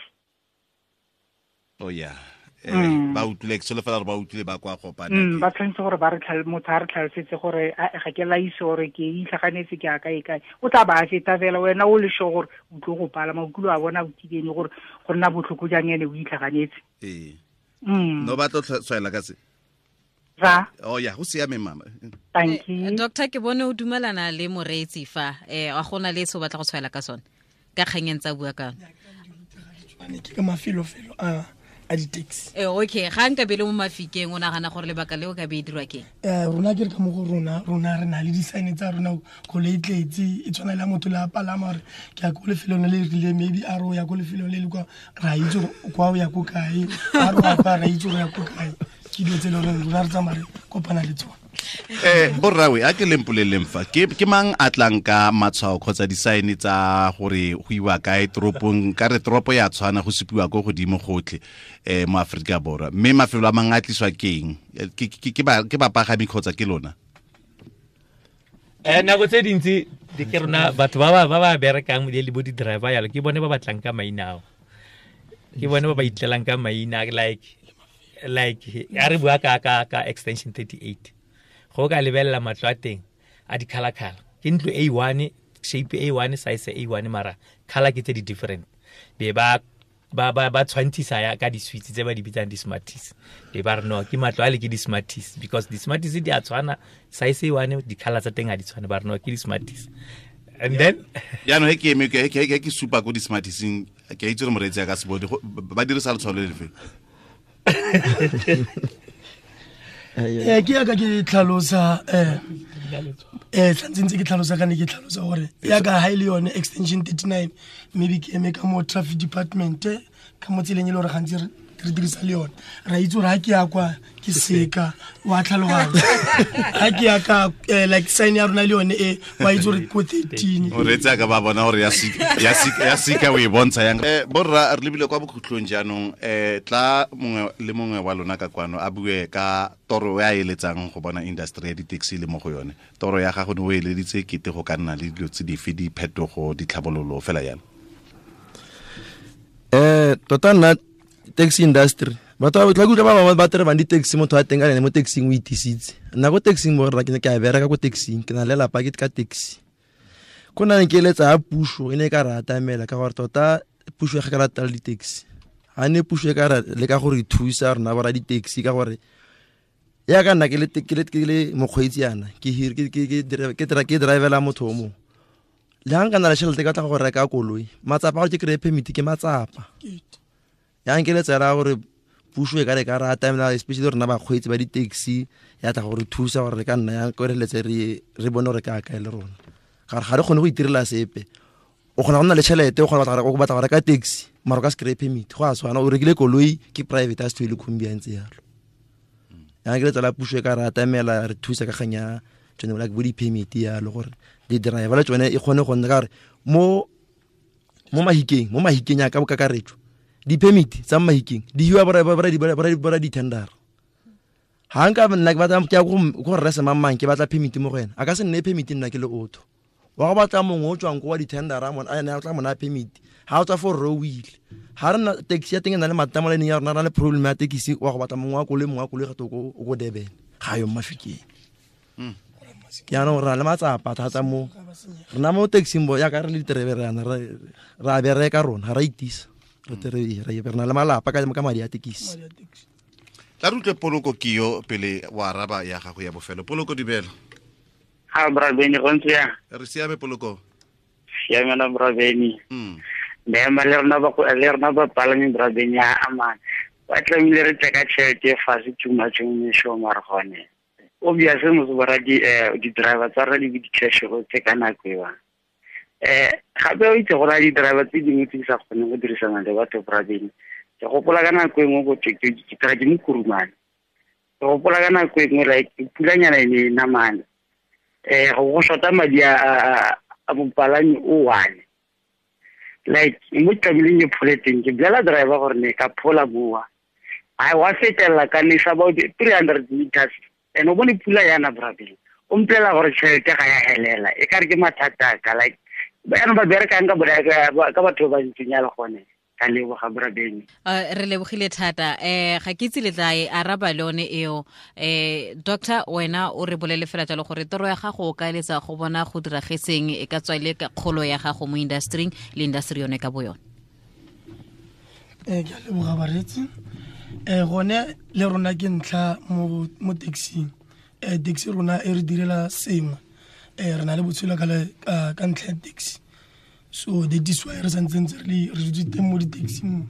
Oh yeah. Ba utlwile ke solofela gore ba utlwile ba kwa Gopane. Ba tshwanetse gore ba re motho a re tlhalosetse gore ga ke laise gore ke itlhaganetse ke a kae kae. O tla ba a feta fela wena o le sure gore o tlo go palama o kile wa bona o kibene gore go nna botlhoko jang ene o itlhaganetse. Ee. No ba tlo tshwaela ka se. Ra. Oh ya, go siame mama. Thank you. Doctor ke bone o dumelana le moreetsi fa a gona le se o batla go tshwaela ka sone ka kganyeng tsa bua ka. Ke ka mafelofelo a di-taxi. Okay, ga nka be le mo Mafikeng o nagana gore lebaka leo ka be e dirwa ke? Rona ke re ka mo go rona re na le di-sign tsa rona koloi e tletse e tshwana le motho le a palama gore ke ya ko lefelong le le rileng maybe a re o ya ko lefelong le le kwa ra itse gore kwa o ya ko kae a re wa kwa ra itse gore ya ko kae. Ke dilo tse e leng gore rona re tsamaya re kopana le tsone. Borrawe a ke lempoleleng fa ke mang a tlang ka matshwao kgotsa di-sign tsa gore go iwa kae toropong ka re toropo ya tshwana go supiwa ko godimo gotlhe mo Aforika Borwa mme mafelo a mangwe a tliswa ke eng ke bapagami kgotsa ke lona? Nako tse dintsi di ke rona batho ba ba berekang le bo di-driver yalo ke bone ba batlang ka maina ao. Ke bone ba ba itlelang ka maina like a re bua ka extension 38. Go ka lebelela matlo a teng a di-colour-colour. Ke ntlo A1, shape A1, size A1 mara colour ke tse di different. Be ba tshwantshisa ya ka di-suites tse ba di bitsang di-smarties. Be ba re no ke matlo a le ke di-smarties because di-smarties di a tshwana size A1 di-colour tsa teng ha di tshwane ba re no ke di-smarties. And then Jaanong he ke eme ke supa ko di-smartiseng, ke a itse gore moreetsi a ka se bone, ba dirisa letshwao le lefe? Ke yaka ke tlhalosa, tlantse ntse ke tlhalosa ka ne ke tlhalosa gore yaka ha e le yone extension 39, maybe ke eme ka mo traffic department, ka mo tseleng e le gore gantsi re dirisa le yone. Ra itse gore ha ke ya kwa ke seka wa tlhaloganya, ha ke ya ka like sign ya rona le yone e wa itse gore ko 13. O reetsa ka ba bona gore ya sika o e bontsha yang. Borra, re lebile kwa bokhutlong jaanong, tla mongwe le mongwe wa lona ka kwano a bue ka toro ya eletsang go bona industry ya di-taxi le mo go yone. Toro ya gago ne o eleditse kete go ka nna le dilo tse dife, diphetogo, ditlhabololo fela jalo? Tota nna taxi industry batho ba tla kutlwa ba bangwe ba terebang di-taxi, motho a teng ka ene mo taxing o itisitse. Nna ko taxing mo rra ke ne ke a bereka ko taxing, ke na le lelapa ke ka taxi. Ko nna ne ke eletsa ya puso e ne e ka re atamela, ka gore tota puso e ga ka rata le di-taxi. Ha ne puso e ka re leka go re thusa rona bo ra di-taxi, ka gore ya ka nna ke le mokgweetsi yana, ke hire, ke, ke, ke, ke, ke, ke drivela motho o mongwe. Le ha nka na le tšhelete ka tla go reka koloi, matsapa a gore ke kry-e permit ke matsapa. Ya nkeletsa ya gore puso e ka re ka re atamela, especially rona bakgweetsi ba di-taxi, ya tla go re thusa gore re ka nna yang ko re letse re bone gore ka kae le rona. Ka gore ga re kgone go itirela sepe. O kgona go nna le tšhelete, o kgona go batla go reka taxi, mara o ka se kry-e permit. Go a tshwana, o rekile koloi ke private, a se thwe le khumbi ya ntse jalo. Ya nkeletsa la puso e ka re atamela, re thusa ka kgang ya tsone, like bo di-permit yalo, gore di-driver le tsone e kgone go nna, ka gore mo Mahikeng, mo Mahikeng ya ka bokakaretso, di-permit tsa Mahikeng di hiwa bora di-tender. Ha nka nna ke batla, ke ya go rre semang-mang, ke batla permit mo go ena, a ka se nne permit nna ke le otho. Wa go batla mongwe o tswang ko wa di-tender, a mona, a ene a tla mo naya permit. Ha o tswa fo rre o ile. Ha re na taxi ya teng e na le mathata mo line ya rona, re na le problem ya taxi, wa go batla mongwe wa koloi, mongwe wa koloi gape o ko Durban. Ga yo mo Mafikeng. Jaanong re na le matsapa thata mo. Rena mo taxing bo, jaaka re le diterebe re yana, re a bereka rona, ga re a itisa. Re terebe, re na le malapa ka madi a tekisi. Tla re utlwe Poloko Kio pele wa araba ya gago ya bofelo. Poloko, dumela. Ha, bra Benny, go ntse yang? Re siame, Poloko. Siame na, bra Benny. Mme ma le rona ba go, le rona ba palami, bra Benny, a amana. Ba tlamehile re tle ka tšhelete e fatshe too much mo mesong, mara gone. Obviously, motho ba ra di-driver tsa rona di be di-cash go tse ka nako eo. Gape o itse gore a di-driver tse dingwe tse di sa kgoneng go dirisana le batho, bra Benny. Ke gopola ka nako e nngwe go thwe ke tla ke mo Kurumane. Ke gopola ka nako e nngwe, like, pulanyana e ne e namane. Go shota madi a mopalami o one. Like, mo tlamehileng ke phole teng, ke bolela driver gore ne ka phola mowa. Ai, wa fetelela ka nesa about 300 meters. And o bone pula yana, bra Benny. O mpolelela gore tšhelete ga ya helela. E ka re ke mathata a ka, like, jaanong ba berekang ka batho ba ba ntseng jalo gone. Ka leboga, bra Benny. Re lebogile thata. Ga ke itse le tla e araba le yone eo. Doctor, wena o re bolele fela jalo gore toro ya gago o ka eletsa go bona go diragetseng, e ka tswa e le ka kgolo ya gago mo industry-ing le industry yone ka bo yone. Ke a leboga bareetsi. Gone le rona ke ntlha mo taxing. Taxi rona e re direla sengwe. Re na le botshelo ka ntlha ya taxi. So that is why re santse ntse re dutse teng mo di-taxing.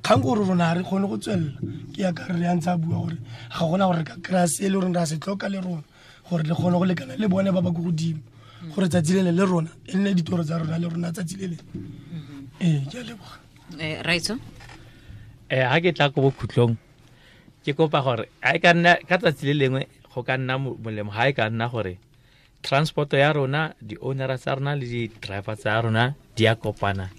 Kgang ke gore rona ga re kgone go tswelela. Ke yaka re ya ntse a bua gore ga gona gore re ka kry-a se e le goreng re a se tlhoka le rona, gore le kgone go lekana le bone ba ba ko godimo, gore tsatsi le le le rona e nne ditoro tsa rona le rona tsatsi le le. Ke a leboga. Raitso? Ha ke tla ko bokhutlong, ke kopa gore ha e ka nna ka tsatsi le lengwe go ka nna molemo, ha e ka nna gore transport ya rona, di-ownera tsa rona le di-driver tsa rona di a kopana,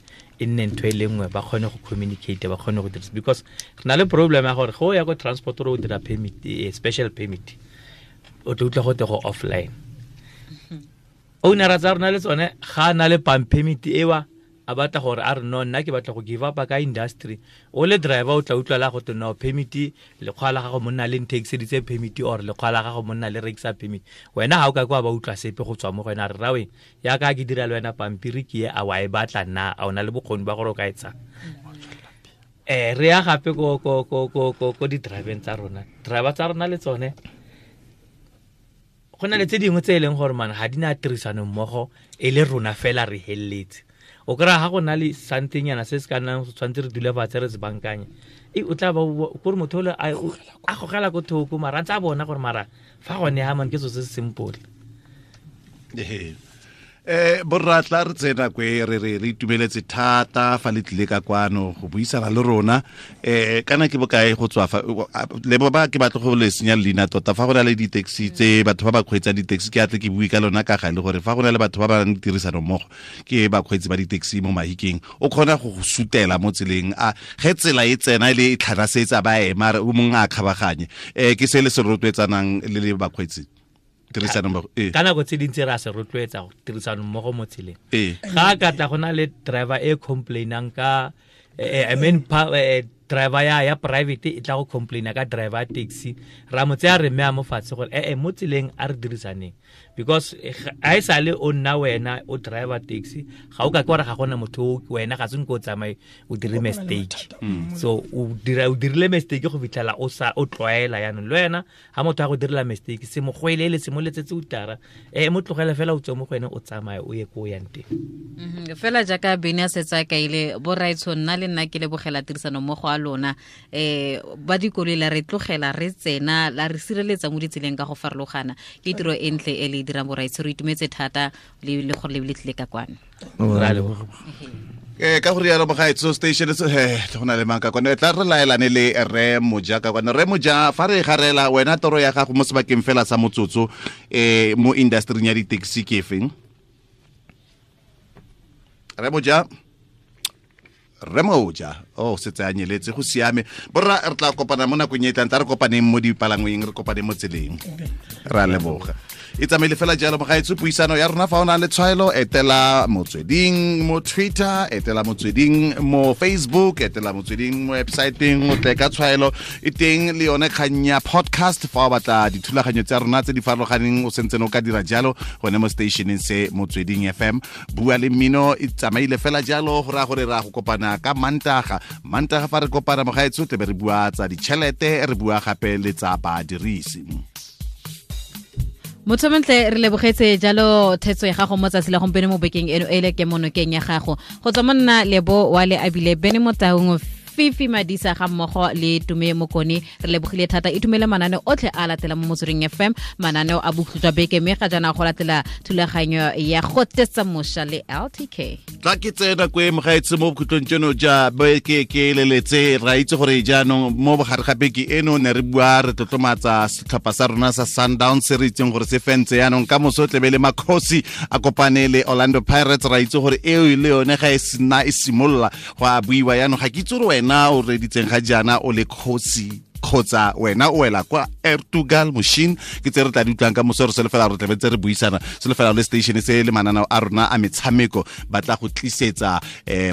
e nne ntho e le nngwe, ba kgone go communicate, ba kgone go dirisa. Because re na le problem ya gore go ya ko transport o dira permit, special permit, o tla utlwa gote go offline. Ownera tsa rona le tsone ga a na le permit ewa, a batla gore a re no, nna ke batla go give up ka industry. O le driver o tla utlwa la gote no, permit lekgwa la gago monna le nthekiseditse permit, or lekgwa la gago monna le rekisa permit. Wena ha o ka kwa ba utlwa sepe go tswa mo go wena, a re rawe, yaka ke dira le wena pampiri ke e, a wa e batla na, a o na le bokgoni ba gore o ka e tsaya. Re ya gape ko di-driveng tsa rona. Driver tsa rona le tsone, Go na le tse dingwe tse e leng gore man ga di na tirisano mmogo e le rona fela re heleletse. O kry-a ga go na le somethingnyana se se ka nnang tshwanetse re dule fatshe re se bankanye, e o tla ba kore motho ole a gogela ko thoko, mara a ntse a bona gore mara fa gone ha man ke so se se simple. Borratla re tsena kwe re re re itumeletse thata fa le tlile ka kwano go buisana le rona. Kana ke bokae go tswa fa le ba ke batlo go le senya leina tota fa go na le di-taxi tse batho ba ba kgweetsang di-taxi, ke atle ke bue ka lona ka gale gore fa go na le batho ba ba nang le tirisano mmogo ke bakgweetsi ba di-taxi mo Mahikeng, o kgona go go sutela mo tseleng a ge tsela e tsena le e tlhanasetsa ba ema o mongwe a kgabaganye. Ke se le se rotloetsanang le le bakgweetsi ka nako tse dintsi re a se rotloetsa go tirisano mmogo mo tseleng. Ga ka tla go na le driver e complainang ka I mean driver ya private e tla go complaina ka driver ya taxi, ra mo tseya re mme a mo fatshe gore mo tseleng a re dirisaneng, because a e sale o nna wena o driver taxi ga o ka ke gore ga gona motho wena ga se nko o tsamaye o dire mistake. So o dirile mistake go fitlhela o sa o tlwaela yanong le wena ha motho a go direla mistake se mo goelele se mo letsetse utara mo tlogela fela o tswe mo go ene o tsamaye o ye ko o yang teng. Fela jaaka Bene a setse a kaile borraetsho, nna le nna ke lebogela tirisano mmogo a lona. Ba dikoloi la re tlogela re tsena la re sireletsa mo ditseleng ka go farologana, ke tiro e ntle e le dirang borraetsho, re itumetse thata le gore le tlile ka kwano. Ka go rialo mogaetso station go na le mang ka kwane tla re laelane le Rre Moja ka kwane. Rre Moja, fa re garela wena toro ya gago mo sebakeng fela sa motsotso mo industry ya di-taxi ke efeng? Rre Moja, Rre Moja, oh setse a nyeletse, go siame. Borra re tla kopana mo nakong e tlang, tla re kopaneng mo dipalangweng, re kopaneng mo tseleng. Re a leboga. E tsamaile fela jalo mogaetso puisano ya rona. Fa o na le tshwaelo, etela Motsweding mo Twitter, etela Motsweding mo Facebook, etela Motsweding mo websiteng, o tle ka tshwaelo e teng le yone kgang ya podcast. Fa o batla dithulaganyo tsa rona tse di farologaneng o sentse o ka dira jalo gone mo stationeng se Motsweding FM. Bua le mmino e tsamaile fela jalo, go raya gore ra go kopana ka Mantaga. Mantaga fa re kopana mogaetso tle be re bua tsa ditšhelete, re bua gape le tsa badirisi. Motho montle, re lebogetse jalo thetso ya gago mo tsatsi la gompieno mo bekeng eno e le ke monokeng ya gago. Go tswa monna Lebo wa le abile Bene Motaung, Fifi Madisa ga mmogo le Tume Mokone, re lebogile thata. Itumele mananeo otlhe a latela mo Motsweding FM, mananeo a bokhutlo jwa beke, mme ga jaana go latela thulaganyo ya go tetsa moša le LTK. Tla ke tsena kwe mogaetse mo bokhutlong tseno ja beke ke leletse. Ra itse gore jaanong mo bogare ga beke eno ne re bua re tlotlomatsa setlhopha sa rona sa Sundowns se re itseng gore se fentse jaanong ka moso tlebe le Makhosi a kopane le Orlando Pirates. Ra itse gore eo le yone ga e sena e simolola go a buiwa jaanong. Ga ke itse gore wena o reditseng ga jaana o le kgosi kgotsa wena o wela kwa Ertugal Machine, ke tse re tla di utlwang ka moso. Re solofela re tlabe tse re buisana, solofela le station se le mananeo a rona a metshameko ba tla go tlisetsa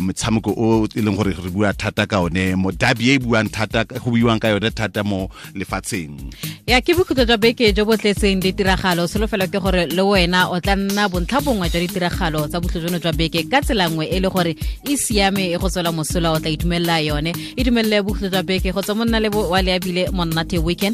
metshameko o e leng gore re bua thata ka one mo derby e buang thata, go buiwang ka yone thata mo lefatsheng. Ya ke bokhutlo jwa beke jo bo tletseng ditiragalo, solofela ke gore le wena o tla nna bontlha bongwe jwa ditiragalo tsa bokhutlo jono jwa beke ka tsela nngwe e le gore e siame e go tswela mosola, o tla itumelela yone. Itumelele bokhutlo jwa beke go tswa monna le wa le abile monate weekend.